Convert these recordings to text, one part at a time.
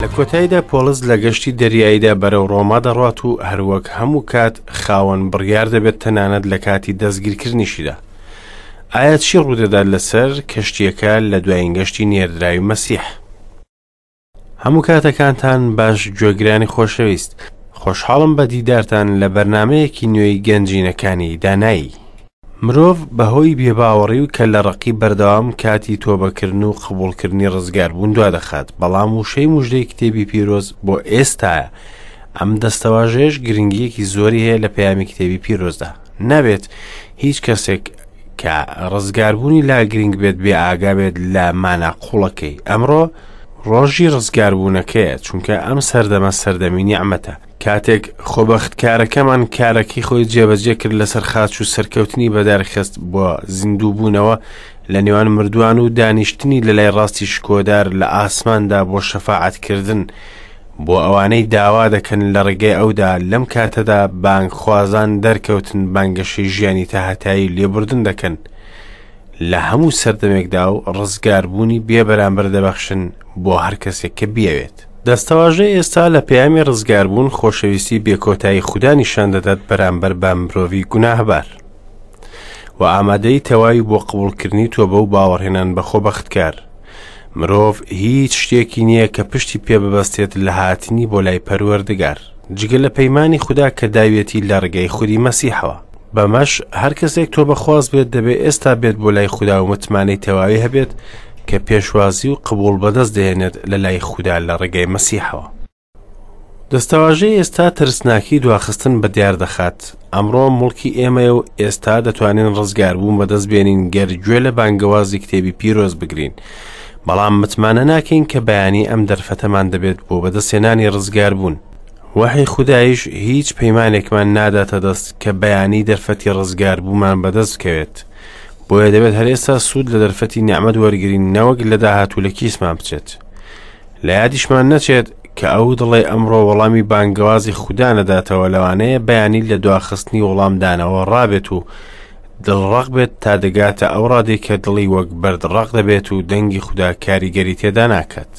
لە کۆتاییدا پۆڵس لە گەشتی دەریاییدا بەرەو ڕۆما دەڕوات و هەروەک هەموو کات خاوەن بڕیار دەبێت تەنانەت لە کاتی دەستگیرکردنیشیدا. ئایا چی ڕوودەدات لەسەر کەشتییەکە لە دوایین گەشتی نێردراوی مەسیح؟ هەموو کاتەکانتان باش گوێگرانی خۆشەویست خۆشحاڵم بە دیدارتان لە بەرنمەیەکی نوێی گەنجینەکانی دانایی. مرۆڤ بەهۆی بێباوەڕی و کەللەڕەقی بەردەوام کاتی تۆبەکردن و قبوڵکردنی ڕزگاربوون دوادەخات، بەڵام وشەی مژدەی کتێبی پیرۆز بۆ ئێستایە، ئەم دەستەواژەیەش گرنگییەکی زۆری هەیە لە پەیامی کتێبی پیرۆزدا. نابێت هیچ کەسێک کە ڕزگاربوونی لا گرنگ بێت بێ ئاگا بێت لە مانا قوڵەکەی. ئەمڕۆ ڕۆژی ڕزگاربوونەکەیە، چونکە ئەم سەردەمە سەردەمی نیعمەتە. کاتێک خۆبەختکارەکەمان کارەکەی خۆی جێبەجێ کرد لەسەر خاچ و سەرکەوتنی بەدارخست بۆ زیندووبوونەوە لە نێوان مردووان و دانیشتنی لە لای ڕاستی شکۆدار لە ئاسماندا بۆ شەفاعەتکردن بۆ ئەوانەی داوا دەکەن لە ڕێگەی ئەودا لەم کاتەدا بانگخوازان دەرکەوتن بانگەشەی ژیانی تاهەتایی لێبوردن دەکەن لە هەموو سەردەمێکدا و ڕزگاربوونی بێ بەرامبەر دەبەخشن بۆ هەر کەسێک کە بیەوێت. دەستەواژەی ئێستا لە پەیامی ڕزگاربوون خۆشەویستی بێکۆتایی خودا نیشان دەدات بەرامبەر بە مرۆڤی گوناهبار و ئامادەی تەواوی بۆ قبوڵکردنی تۆبە و باوەڕهێنان بە خۆبەختکار. مرۆڤ هیچ شتێکی نییە کە پشتی پێ ببەستێت لە هاتنی بۆ لای پەروەردگار جگە لە پەیمانی خودا کە داویەتی لە ڕێگەی خودی مەسیحەوە. بەمەش هەر کەسێک تۆبەخواز بێت دەبێ ئێستا بێت بۆ لای خودا و متمانەی تەواوی هەبێت کە پێشوازی و قبوڵ بەدەست دەهێنێت لە لای خودا لە ڕێگەی مەسیحەوە. دەستەواژەی ئێستا ترسناکی دواخستن بە دیار دەخات. ئەمڕۆ موڵکی ئێمەیە و ئێستا دەتوانین ڕزگاربوون بەدەست بێنین گەر گوێ لە بانگەوازی کتێبی پیرۆز بگرین. بەڵام متمانە ناکەین کە بەیانی ئەم دەرفەتەمان دەبێت بۆ بەدەستهێنانی ڕزگاربوون. وەحی خودایش هیچ پەیمانێکمان ناداتە دەست کە بەیانی دەرفەتی ڕزگاربوومان بەدەست بکەوێت. بۆیە دەبێت هەر ئێستا سوود لە دەرفەتی نیعمەت وەرگرین نەوەک لە داهاتوو لە کیسمان بچێت. لە یادیشمان نەچێت کە ئەو دڵەی ئەمڕۆ وەڵامی بانگەوازی خودا نەداتەوە لەوانەیە بەیانی لە دواخستنی وەڵامدانەوە ڕابێت و دڵڕەق بێت تا دەگاتە ئەو ڕادەی کە دڵی وەک بەرد ڕەق دەبێت و دەنگی خودا کاریگەری تێدا ناکات.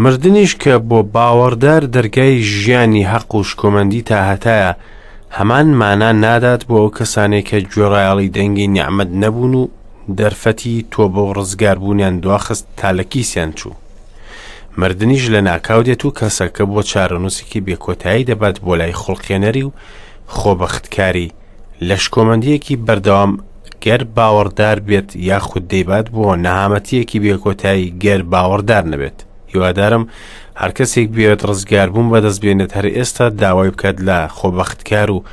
مردنیش کە بۆ باوەڕدار دەرگای ژیانی هەق و شکۆمەندی تاهەتایە، هەمان مانا نادات بۆ ئەو کەسانەی کە گوێڕایەڵی دەنگی نیعمەت نەبوون و دەرفەتی تۆبە و ڕزگاربوونیان دواخست تا لە کیسیان چوو. مردنیش لە ناکاو دێت و کەسەکە بۆ چارەنووسێکی بێکۆتایی دەبات بۆ لای خوڵقێنەری و خۆبەختکاری لە شکۆمەندییەکی بەردەوام گەر باوەڕدار بێت یاخود دەیبات بۆ نەهامەتییەکی بێکۆتایی گەر باوەڕدار نەبێت. هیوادارم هەر کەسێک بێت ڕزگاربوون بەدەست بێنێت هەر ئێستا داوای بکات لە خۆبەختکار و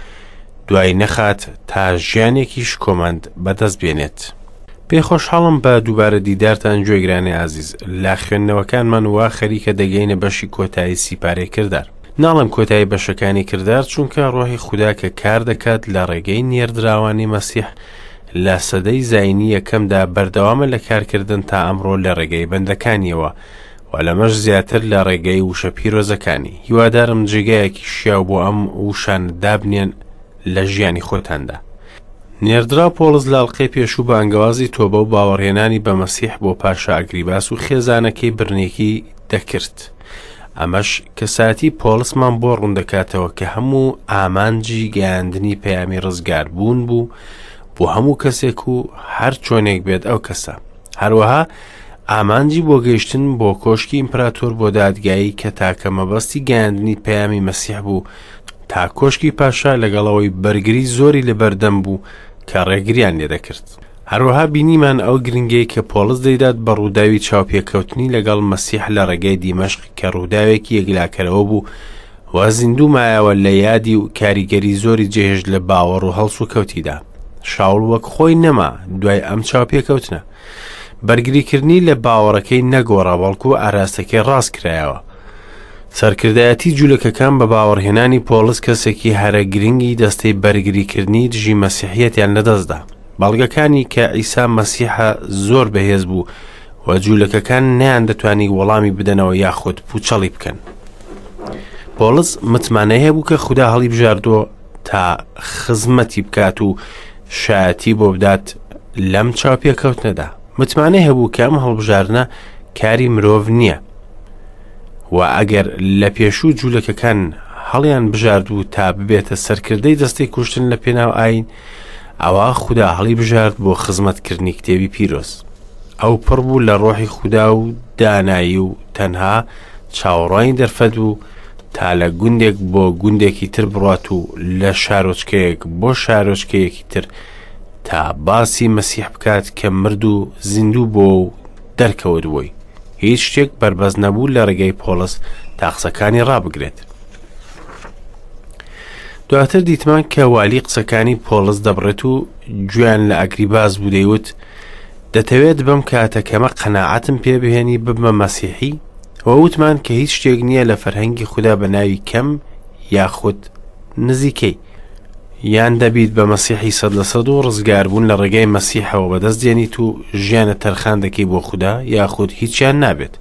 دوای نەخات تا ژیانێکی شکۆمەند بەدەست بێنێت. پێ خۆشحاڵم بە دووبارە دیدارتان گوێگرانی ئازیز لە خوێندنەوەکانمان وا خەریکە دەگەینە بەشی کۆتایی سیپارەی کردار. ناڵێم کۆتایی بەشەکانی کردار چونکە ڕۆحی خودا کە کار دەکات لە ڕێگەی نێردراوانی مەسیح لە سەدەی زاینی یەکەمدا بەردەوامە لە کارکردن تا ئەمڕۆ لە ڕێگەی بەندەکانیەوە و لەمەش زیاتر لە ڕێگەی وشە پیرۆزەکانی هیوادارم جێگایەکی شیاو بۆ ئەم وشانە دابنێن لە ژیانی خۆتاندا. نێردراو پۆڵس لە ئەڵقەی پێشوو بانگەوازی تۆبە و باوەڕهێنانی بە مەسیح بۆ پاشا ئەگریباس و خێزانەکەی برنێکی دەکرد. ئەمەش کەسایەتی پۆڵسمان بۆ ڕوون دەکاتەوە کە هەموو ئامانجی گەیاندنی پەیامی ڕزگاربوون بوو بۆ هەموو کەسێک و هەر چۆنێک بێت ئەو کەسە. هەروەها ئامانجی بۆ گەیشتن بۆ کۆشکی ئیمپراتۆر بۆ دادگایی کە تاکە مەبەستی گەیاندنی پەیامی مەسیح بوو تا کۆشکی پاشا لەگەڵەوەی بەرگری زۆری لەبەردەم بوو کە ڕێگریان لێدەکرد. هەروەها بینیمان ئەو گرنگەی کە پۆڵس دەیدات بە ڕووداوی چاوپێکەوتنی لەگەڵ مەسیح لە ڕێگای دیمەشق کە ڕووداوێکی یەکلاکەرەوە بوو و زیندوو مایەوە لە یادی و کاریگەری زۆری جێهێشت لە باوەڕ و هەڵسوکەوتیدا. شاوڵ وەک خۆی نەما دوای ئەم چاوپێکەوتنە. بەرگریکردنی لە باوەڕەکەی نەگۆڕا بەڵکو ئاراستەکەی ڕاست کرایەوە. سەرکردایەتی جولەکەکان بە باوەڕهێنانی پۆڵس کەسێکی هەرە گرنگی دەستەی بەرگریکردنی دژی مەسیحیەتیان لەدەستدا. بەڵگەکانی کە عیسا مەسیحە زۆر بەهێز بوو و جولەکەکان نەیاندەتوانی وەڵامی بدەنەوە یاخود پوچەڵی بکەن. پۆڵس متمانەی هەبوو کە خودا هەڵیبژاردووە تا خزمەتی بکات و شایەتی بۆ بدات لەم چاوپێکەوتنەدا. متمانەی هەبوو کە ئەم هەڵبژاردنە کاری مرۆڤ نییە. و ئەگەر لە پێشوو جوولەکەکان هەڵیان بژارد و تا ببێتە سەرکردەی دەستەی کوشتن لە پێناو ئاین، ئەوا خودا هەڵی بژارد بۆ خزمەتکردنی کتێبی پیرۆز. ئەو پڕ بوو لە ڕۆحی خودا و دانایی و تەنها چاوەڕوانی دەرفەت بوو تا لە گوندێک بۆ گوندێکی تر بڕات و لە شارۆچکەیەک بۆ شارۆچکەیەکی تر تا باسی مەسیح بکات کە مرد و زیندوو بۆ و دەرکەوت بۆی. هیچ شتێک بەربەست نەبوو لە ڕێگەی پۆڵس تا قسەکانی ڕابگرێت. دواتر دیتمان کە والی قسەکانی پۆڵس دەبڕێت و گوێیان لە ئەگریباس بوو دەیوت دەتەوێت بەم کاتە کەمە قەناعەتم پێ بهێنی ببمە مەسیحی و وتمان کە هیچ شتێک نییە لە فەرهەنگی خودا بە ناوی کەم یاخود نزیکەی یان دەبیت بە مەسیحی 100% و ڕزگاربوون لە ڕێگای مەسیحەوە بەدەست دێنیت و ژیانە تەرخان دەکەی بۆ خودا یاخود هیچیان نابێت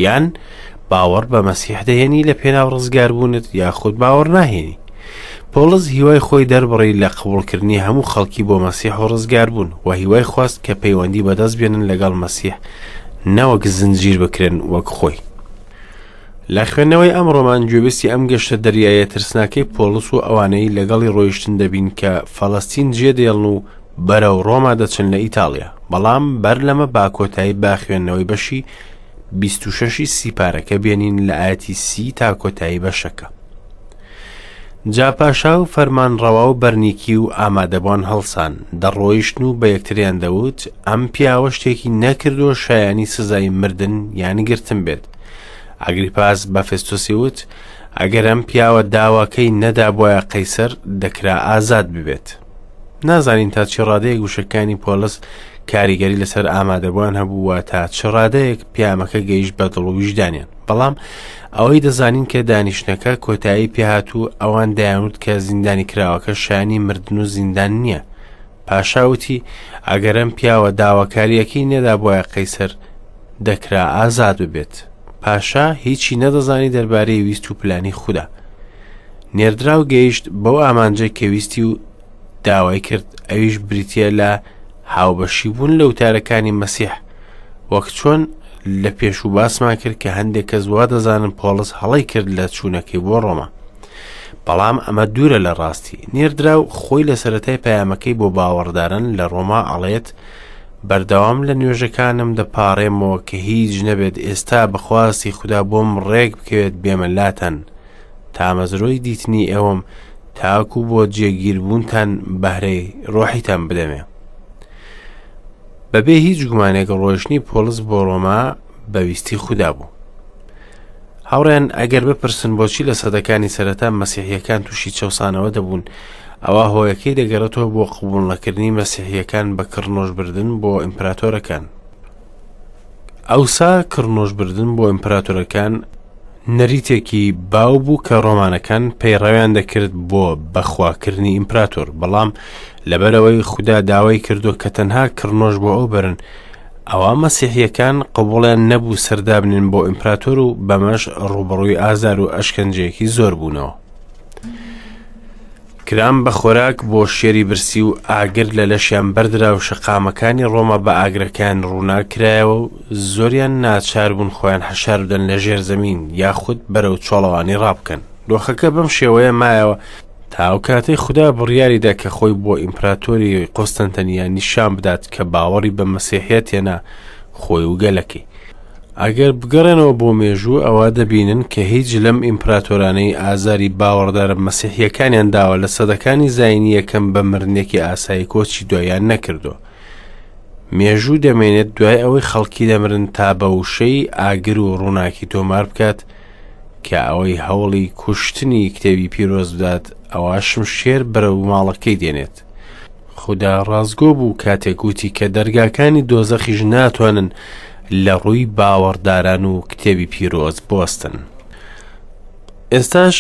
یان باوەڕ بە مەسیح دەهێنی لە پێناو ڕزگاربوونت یاخود باوەڕ ناهێنی. پۆڵس هیوای خۆی دەربڕی لە قبوڵکردنی هەموو خەڵکی بۆ مەسیح و ڕزگاربوون و هیوای خواست کە پەیوەندی بەدەست بێنن لەگەڵ مەسیح نەوەک زنجیر بکرێن وەک خۆی. لە خوێندنەوەی ئەم ڕۆمان گوێبیستی ئەم گەشتە دەریایە ترسناکەی پۆڵس و ئەوانەی لەگەڵی ڕۆیشتن دەبین کە فەڵەستین جێدێڵن و بەرەو ڕۆما دەچن لە ئیتاڵیا بەڵام بەر لەمە با کۆتایی با خوێندنەوەی بەشی 26 سیپارەکە بێنین لە ئاەتی سی تا کۆتایی بەشەکە. جا پاشا و فەرمانڕەوا و بەرنیکی و ئامادەبووان هەڵسان، دەڕۆیشتن و بە یەکتریان دەوت، ئەم پیاوە شتێکی نەکردووە شایانی سزای مردن یان گرتن بێت. ئەگریپاس بە فێستۆسی وت، ئەگەر ئەم پیاوە داواکەی نەدابوایە قەیسەر، دەکرا ئازاد ببێت. نازانین تا چ ڕادەیەک وشەکانی پۆلس کاریگەری لەسەر ئامادەبووان هەبوو و تا چ ڕادەیەک پیامەکە گەیشت بە دڵ و ویژدانیان. بەڵام ئەوەی دەزانین کە دانیشتنەکە کۆتایی پێهات و ئەوان دەیانوت کە زیندانی کراوەکە شایانی مردن و زیندان نییە. پاشا وتی ئەگەر ئەم پیاوە داواکارییەکەی نەدابوایە قەیسەر دەکرا ئازاد ببێت. پاشا هیچی نەدەزانی دەربارەی ویست و پلانی خودا. نێردراو گەیشت بەو ئامانجەی کە ویستی و داوای کرد ئەویش بریتە لە هاوبەشی بوون لە وتارەکانی مەسیح وەک چۆن لە پێشوو باسمان کرد کە هەندێک کەس وا دەزانن پۆڵس هەڵەی کرد لە چوونەکەی بۆ ڕۆما بەڵام ئەمە دوورە لە ڕاستی نێردراو خۆی لە سەرەتای پەیامەکەی بۆ باوەڕدارن لە ڕۆما ئەڵێت بەردەوام لە نوێژەکانم دەپارێمەوە کە هیچ نەبێت ئێستا بەخواستی خودا بۆم ڕێک بکەوێت بێمە لاتان تامەزرۆی دیتنی ئێوەم تاکو بۆ جێگیربوونتان بەهرەی ڕۆحیتان بدەمێ. بەبێ هیچ گومانێک ڕۆیشتنی پۆڵس بۆ ڕۆما بە ویستی خودا بوو. هاوڕێن ئەگەر بپرسن بۆچی لە سەدەکانی سەرەتا مەسیحیەکان تووشی چەوسانەوە دەبوون ئەوە هۆیەکەی دەگەڕێتەوە بۆ قبوڵ نەکردنی مەسیحیەکان بە کڕنۆشبردن بۆ ئیمپراتۆرەکان. ئەوسا کڕنۆشبردن بۆ ئیمپراتۆرەکان نەریتێکی باو بوو کە ڕۆمانەکان پەیڕەویان دەکرد بۆ بەخواکردنی ئیمپراتۆر، بەڵام لەبەرئەوەی خودا داوای کردووە کە تەنها کڕنۆش بۆ ئەو بەرن، ئەوا مەسیحییەکان قبوڵیان نەبوو سەردابنێن بۆ ئیمپراتۆر و بەمەش ڕووبەڕووی ئازار و ئەشکەنجەیەکی زۆر بوونەوە. کران بە خۆراک بۆ شێری برسی و ئاگر لە لەشیان بەردرا و شەقامەکانی ڕۆما بە ئاگرەکان ڕووناک کرایەوە و زۆریان ناچار بوون خۆیان حەشار بدەن لە ژێر زەمین یاخود بەرەو چۆڵەوانی ڕابکەن. دۆخەکە بەم شێوەیە مایەوە تا ئەو کاتەی خودا بڕیاری دا کە خۆی بۆ ئیمپراتۆری قوستەنتەنیە نیشان بدات کە باوەڕی بە مەسیحیەت هێنا خۆی و گەلەکەی. ئەگەر بگەڕێنەوە بۆ مێژوو ئەوا دەبینن کە هیچ لەم ئیمپراتۆرانەی ئازاری باوەڕدارە مەسیحیەکانیان داوە لە سەدەکانی زایینی یەکەم بە مردنێکی ئاسایی کۆچی دواییان نەکردووە. مێژوو دەمێنێت دوای ئەوەی خەڵکی دەمرن تا بە وشەی ئاگر و ڕووناکی تۆمار بکات کە ئەوەی هەوڵی کوشتنی کتێبی پیرۆز بدات ئەوا شمشێر بەرەو ماڵەکەی دێنێت. خودا ڕاستگۆ بوو کاتێک وتی کە دەرگاکانی دۆزەخیش ناتوانن لە ڕووی باوەڕداران و کتێبی پیرۆز بوەستن. ئێستاش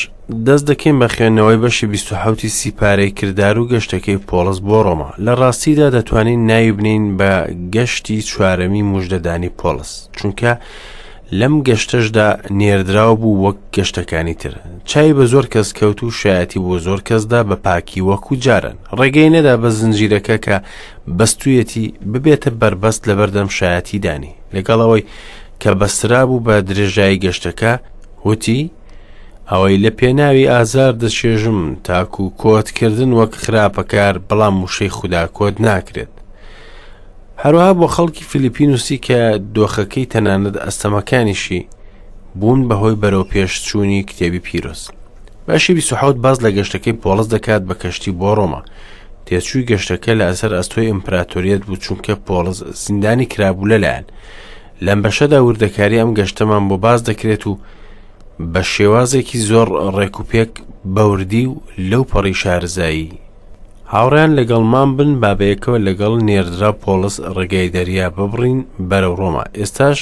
دەست دەکەین بە خوێندنەوەی بەشی 27 سیپارەی کردار و گەشتەکەی پۆڵس بۆ ڕۆما. لە ڕاستیدا دەتوانین ناوی بنێین بە گەشتی چوارەمی موژدەدانی پۆڵس، چونکە لەم گەشتەشدا نێردراو بوو وەک گەشتەکانی تر. چاوی بە زۆر کەس کەوت و شایەتی بۆ زۆر کەس دا بە پاکی وەکو جاران. ڕێگەی نەدا بە زنجیرەکە کە بەستوویەتی ببێتە بەربەست لەبەردەم شایەتیدانی. لەگەڵ ئەوەی کە بەسترابوو بە درێژایی گەشتەکە، وتی، ئەوەی لە پێناوی ئازار دەچێژم تاکو کۆتکردن وەک خراپەکار بەڵام وشەی خودا کۆت ناکرێت. هەروەها بۆ خەڵکی فیلیپی نووسی کە دۆخەکەی تەنانەت ئەستەمەکانیشی بوون بەهۆی بەرەو پێشچوونی کتێبی پیرۆز. بەشی 27 باس لە گەشتەکەی پۆڵس دەکات بە کەشتی بۆ ڕۆما. تێچووی گەشتەکە لە ئەسەر ئەستۆی ئیمپراتۆریەت بوو چونکە پۆڵس زیندانی کرابوو لەلایەن. لەم بەشەدا وردەکاری ئەم گەشتەمان بۆ باس دەکرێت و بە شێوازێکی زۆر ڕێکوپێک بەوردی و لەو پەڕی شارەزایی هاوڕێیان لەگەڵمان بن با بەیەکەوە لەگەڵ نێردرا پۆڵس ڕێگای دەریا ببڕین بەرەو ڕۆما ئێستاش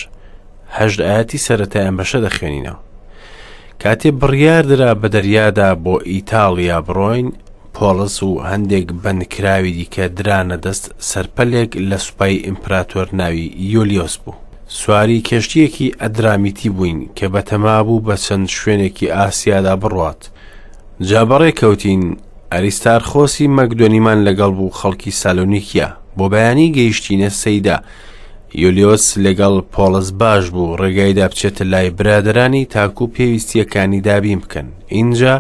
هەشت ئاەتی سەرەتای ئەم بەشە دەخوێنینەوە کاتێ بڕیار درا بە دەریادا بۆ ئیتاڵیا بڕۆین پۆڵس و هەندێک بەندکراوی دیکە درانە دەست سەرپەلێک لە سوپای ئیمپراتۆر ناوی یۆلیۆس بوو. سواری کەشتییەکی ئەدرامیتی بووین کە بەتەما بوو بە چەند شوێنێکی ئاسیادا بڕوات. جا بەڕێ کەوتین، ئەریستارخۆسی مەکدۆنیمان لەگەڵ بوو خەڵکی سالۆنیکیا. بۆ بەیانی گەیشتینە سەیدا. یۆلیۆس لەگەڵ پۆڵس باش بوو، ڕێگایدا بچێتە لای برادەرانی تاکو پێویستییەکانی دابین بکەن. ئینجا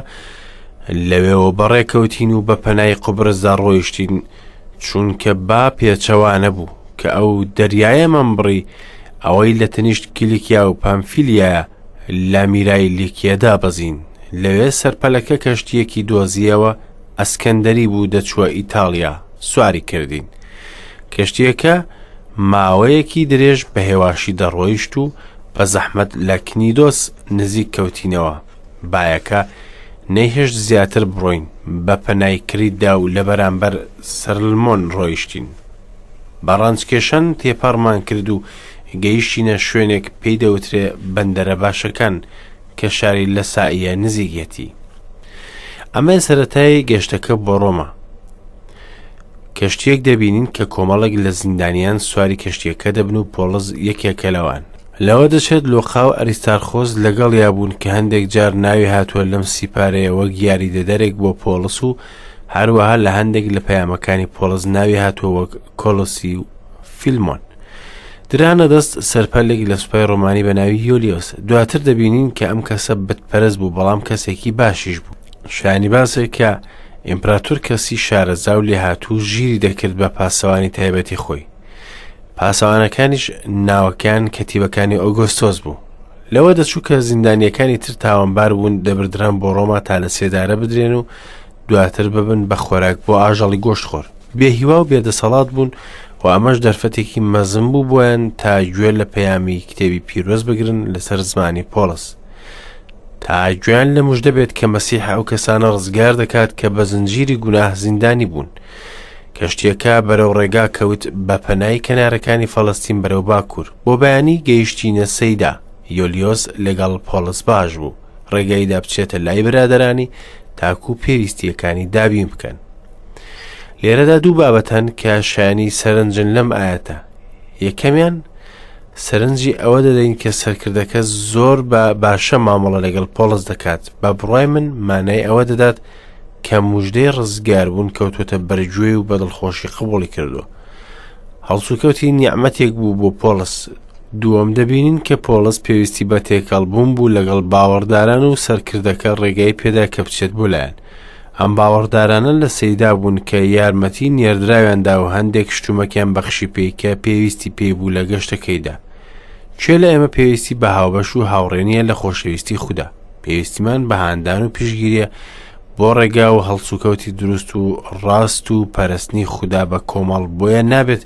لەوێوە بەڕێکەوتین و بە پەنای قوبرسدا ڕۆیشتین چونکە با پێچەوانە بوو کە ئەو دەریایەمان بڕی ئەوەی لە تەنیشت کیلیکیا و پامفیلیایە لە میرای لیکیە دابەزین لەوێ سەرپەلەکە کەشتیەکی دۆزیەوە ئەسکەندەری بوو دەچووە ئیتاڵیا سواری کردین کەشتیەکە ماوەیەکی درێژ بە هێواشی دەڕۆیشت و بە زەحمەت لە کنیدۆس نزیک کەوتینەوە بایەکە نەیهێشت زیاتر بڕۆین، بە پەنای کریتدا و لە بەرامبەر سەرلمۆن ڕۆیشتین. بە ڕەنجکێشان تێپەڕمان کرد و گەیشتینە شوێنێک پێی دەوترێ بەندەرە باشەکان کە شاری لەسائیە نزیکیەتی. ئەمە سەرەتای گەشتەکە بۆ ڕۆما. کەشتییەک دەبینین کە کۆمەڵێک لە زیندانیان سواری کەشتییەکە دەبن و پۆڵس یەکێکە لەوان. لەوە دەچێت لۆقا و ئەریستارخۆس لەگەڵیا بوون کە هەندێک جار ناوی هاتووە لەم سیپارەیە وەک یاریدەدەرێک بۆ پۆڵس و هەروەها لە هەندێک لە پەیامەکانی پۆڵس ناوی هاتووە وەک کۆلۆسی و فیلمۆن. درانە دەست سەرپەلێک لە سوپای ڕۆمانی بە ناوی یۆلیۆس. دواتر دەبینین کە ئەم کەسە بتپەرست بوو بەڵام کەسێکی باشیش بوو. شایانی باسە کە ئیمپراتور کەسی شارەزا و لێهاتوو ژیری دەکرد بە پاسەوانی تایبەتی خۆی. پاسەوانەکانیش ناوەکان کەتیبەکانی ئۆگۆستۆس بوو. لەوە دەچوو کە زیندانیەکانی تر تاوانبار بوون دەبردران بۆ ڕۆما تا لە سێدارە بدرێن و دواتر ببن بە خۆراک بۆ ئاژەڵی گۆشتخۆر. بێهیوا و بێدەسەڵات بوون و ئەمەش دەرفەتێکی مەزن بوو بۆیان تا گوێ لە پەیامی کتێبی پیرۆز بگرن لەسەر زمانی پۆڵس. تا گوێیان لە مژدە بێت کە مەسیح ئەو کەسانە ڕزگار دەکات کە بە زنجیری گوناه زیندانی بوون. کەشتیەکە بەرەو ڕێگا کەوت بە پەنای کەنارەکانی فەڵەستین بەرەو باکوور. بۆ بەیانی گەیشتینە سەیدا. یۆلیۆس لەگەڵ پۆڵس باش بوو. ڕێگایدا بچێتە لای برادەرانی تاکو پێویستیەکانی دابین بکەن. لێرەدا دوو بابەت هەن کە شایانی سەرنجن لەم ئاەتە. یەکەمیان سەرنجی ئەوە دەدەین کە سەرکردەکە زۆر بە باشە مامەڵە لەگەڵ پۆڵس دەکات بە بڕای من مانای ئەوە دەدات کە مژدەی ڕزگاربوون کەوتوتە بەرگوێ و بە دڵخۆشی قبوڵی کردووە هەڵسوکەوتی نیعمەتێک بوو بۆ پۆڵس دووەم دەبینین کە پۆڵس پێویستی بە تێکەڵبوون بوو لەگەڵ باوەڕداران و سەرکردەکە ڕێگای پێدا کە بچێت بۆ لایەن ئەم باوەڕدارانە لە سەیدا بوون کە یارمەتی نێردراویان دا و هەندێک شتومەکیان بەخشی پێی کە پێویستی پێی بوو لە گەشتەکەیدا. کێ لە ئێمە پێویستی بە هاوبەش و هاوڕێ نییە لە خۆشەویستی خودا؟ پێویستیمان بە هاندان و پشتگیریە بۆ ڕێگا و هەڵسوکەوتی دروست و ڕاست و پەرستنی خودا بە کۆمەڵ بۆیە نابێت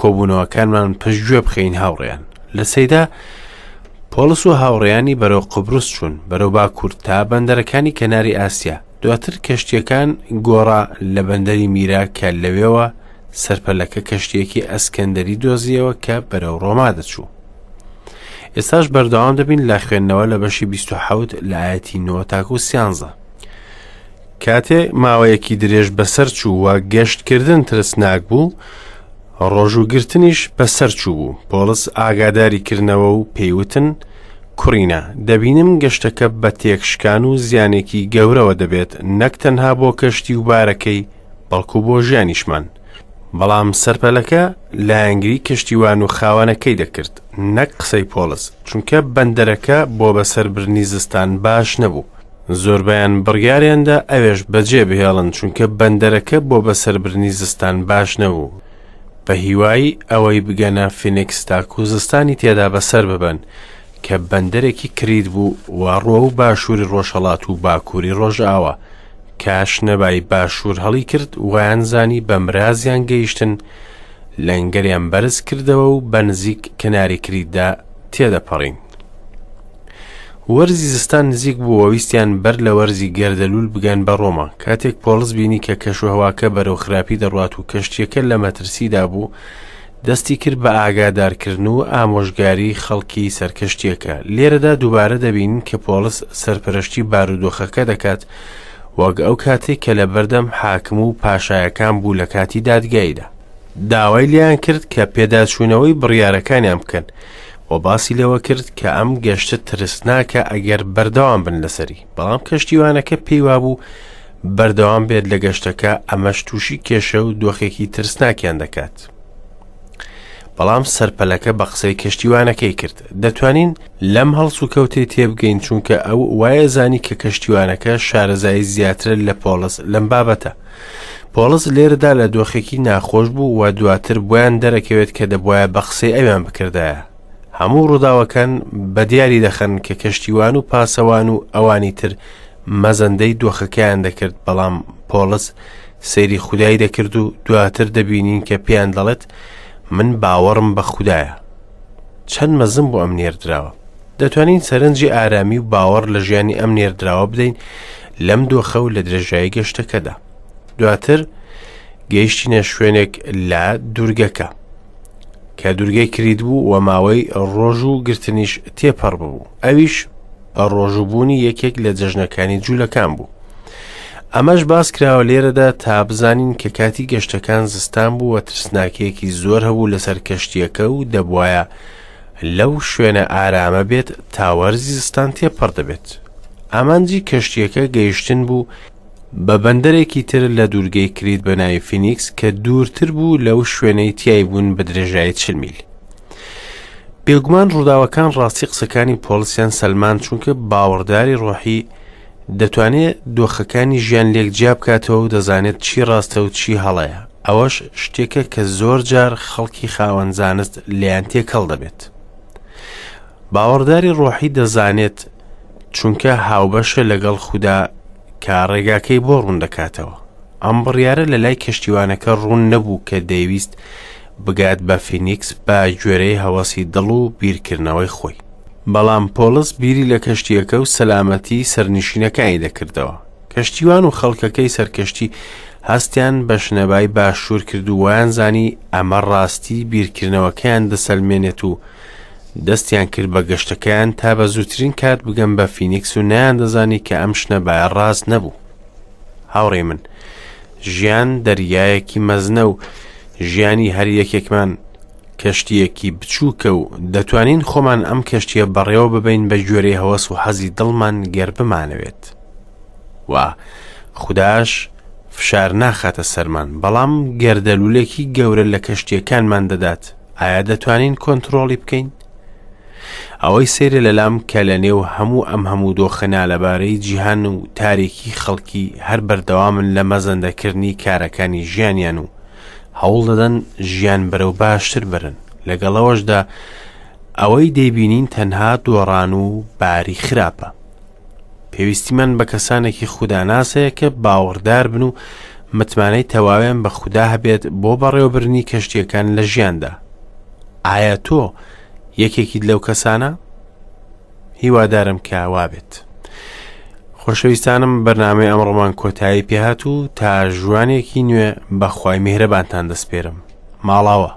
کۆبوونەوەکانمان پشتگوێ بخەین هاوڕێیان لە سەیدا پۆڵس و هاوڕێیانی بەرەو قوبرس چوون، بەرەو باکوور تا بەندەرەکانی کەناری ئاسیا. دواتر کەشتییەکان گۆڕا لە بەندەری میرا کە لەوێوە سەرپەلەکە کەشتییەکی ئەسکەندەری دۆزیەوە کە بەرەو ڕۆما دەچوو. ئێستاش بەردەوام دەبین لە خوێندنەوە لە بەشی 27 لە ئایەتی 9 تاکو 13. کاتێ ماوەیەکی درێژ بەسەر چوو و گەشتکردن ترسناک بوو، ڕۆژووگرتنیش بەسەر چووبوو، پۆڵس ئاگاداری کردنەوە و پێی وتن، کوڕینە، دەبینم گەشتەکە بە تێکشکان و زیانێکی گەورەوە دەبێت، نەک تەنها بۆ کەشتی و بارەکەی، بەڵکو بۆ ژیانیشمان. بەڵام سەرپەلەکە لایەنگری کەشتیوان و خاوەنەکەی دەکرد نەک قسەی پۆڵس، چونکە بەندەرەکە بۆ بەسەربردنی زستان باش نەبوو. زۆربەیان بڕیاریاندا ئەوێش بەجێ بهێڵن چونکە بەندەرەکە بۆ بەسەربردنی زستان باش نەبوو. بە هیوای ئەوەی بگەنە فینکس تاکو زستانی تێدا بەسەر ببەن کە بەندەرێکی کریت بوو و ڕووەو باشووری ڕۆژهەڵات و باکووری ڕۆژئاوا کە شنەبای باشوور هەڵی کرد وایان زانی بە مرازیان گەیشتن لەنگەریان بەرز کردەوە و بە نزیک کەناری کریتدا تێدەپەڕین. وەرزی زستان نزیک بوو و ویستیان بەر لە وەرزی گەردەلوول بگەن بە ڕۆما. کاتێک پۆڵس بینی کە کەشوهەواکە بەرەو خراپی دەڕوات و کەشتییەکە لە مەترسیدا بوو، دەستی کرد بە ئاگادارکردن و ئامۆژگاری خەڵکی سەر کەشتییەکە. لێرەدا دووبارە دەبینین کە پۆڵس سەرپەرشتی بارودۆخەکە دەکات، وەک ئەو کاتەی کە لە بەردەم حاکم و پاشایەکان بوو لە کاتی دادگاییدا. داوای لێیان کرد کە پێداچوونەوەی بڕیارەکانیان بکەن و باسی لەوە کرد کە ئەم گەشتە ترسناکە ئەگەر بەردەوام بن لەسەری بەڵام کەشتیوانەکە پێی وابوو بەردەوام بێت لە گەشتەکە ئەمەش تووشی کێشە و دۆخێکی ترسناکیان دەکات بەڵام سەرپەلەکە بە قسەی کەشتیوانەکەی کرد دەتوانین لەم هەڵسوکەوتەی تێبگەین چونکە ئەو وایە زانی کە کەشتیوانەکە شارەزایی زیاترە لە پۆڵس لەم بابەتە پۆڵس لێرەدا لە دۆخێکی ناخۆش بوو و دواتر بۆیان دەرەکەوێت کە دەبواە بە قسەی ئەویان بکردایە هەموو ڕووداوەکان بە دیاری دەخەن کە کەشتیوان و پاسەوان و ئەوانی تر مەزەندەی دۆخەکەیان دەکرد بەڵام پۆڵس سەیری خودای دەکرد و دواتر دەبینین کە پێیان دەڵێت من باوەڕم بە خودایە چەند مەزن بۆ ئەم نێردراوە دەتوانین سەرنجی ئارامی و باوەڕ لە ژیانی ئەم نێردراوە بدەین لەم دۆخە و لە درێژایی گەشتەکەدا دواتر گەیشتینە شوێنێک لە دوورگەکە کە دوورگەی کریت بوو و ماوەی ڕۆژ و گرتنیش تێپەڕ ببوو ئەویش بە ڕۆژووبوونی یەکێک لە جەژنەکانی جوولەکان بوو ئەمەش باس کراوە لێرەدا تا بزانین کە کاتی گەشتەکان زستان بوو و ترسناکیەکی زۆر هەبوو لەسەر کەشتیەکە و دەبواە لەو شوێنە ئارامە بێت تا وەرزی زستان تێپەڕ دەبێت ئامانجی کەشتیەکە گەیشتن بوو بە بەندەرێکی تر لە دوورگەی کریت بە ناوی فینیکس کە دوورتر بوو لەو شوێنەی تیای بوون بە درێژایی چل میل. بێگومان ڕووداوەکان ڕاستی قسەکانی پۆڵسیان سەلمان چونکە باوەڕداری ڕۆحی دەتوانێت دۆخەکانی ژیان لێک جیا بکاتەوە و دەزانێت چی ڕاستە و چی هەڵەیە ئەوەش شتێکە کە زۆر جار خەڵکی خاوەن زانست لێیان تێکەڵ دەبێت باوەڕداری ڕۆحی دەزانێت چونکە هاوبەشە لەگەڵ خودا کە ڕێگاکەی بۆ ڕوون دەکاتەوە. ئەم بڕیارە لە لای کەشتیوانەکە ڕوون نەبوو کە دەیویست بگات بە فینیکس بە گوێرەی هەوەسی دڵ و بیرکردنەوەی خۆی. بەڵام پۆڵس بیری لە کەشتییەکە و سەلامەتی سەرنشینەکانی دەکردەوە. کەشتیوان و خەڵکەکەی سەرکەشتی هەستیان بە شنەبای باشوور کرد و وایانزانی ئەمە ڕاستی بیرکردنەوەکەیان دەسەلمێنێت و دەستیان کرد بە گەشتەکەیان تا بە زووترین کات بگەن بە فینیکس و نەیاندەزانی کە ئەم شنەبایە ڕاست نەبوو. هاوڕێی من، ژیان دەریایەکی مەزنە و ژیانی هەر یەکێکمان کەشتییەکی بچووکە و دەتوانین خۆمان ئەم کەشتییە بەڕێوە ببەین بە گوێرەی هەوەس و حەزی دڵمان گەر بمانەوێت. و خوداش فشار ناخاتە سەرمان، بەڵام گەردەلوولێکی گەورە لە کەشتییەکانمان دەدات. ئایا دەتوانین کۆنتڕۆڵی بکەین؟ ئەوەی سەیرە لەلام کە لە نێو هەموو ئەم هەموو دۆخە نالەبارەی جیهان و تاریکی خەڵکی هەر بەردەوامن لە مەزەندەکردنی کارەکانی ژیانیان و هەوڵ دەدەن ژیان بەرەو باشتر بەرن لەگەڵەوەشدا ئەوەی دەیبینین تەنها دۆڕان و باری خراپە پێویستیمان بە کەسانێکی خوداناس هەیە کە باوەڕدار بن و متمانەی تەواویان بە خودا هەبێت بۆ بەڕێوەبردنی کەشتییەکان لە ژیاندا. ئایا تۆ یەکێکیت لەو کەسانە؟ هیوادارم کە وابێت. خۆشەویستانم بەرنامەی ئەمڕۆمان کۆتایی پێهات و تا ژوانێکی نوێ بەخوای میهرەبانتان دەسپێرم. ماڵاوە.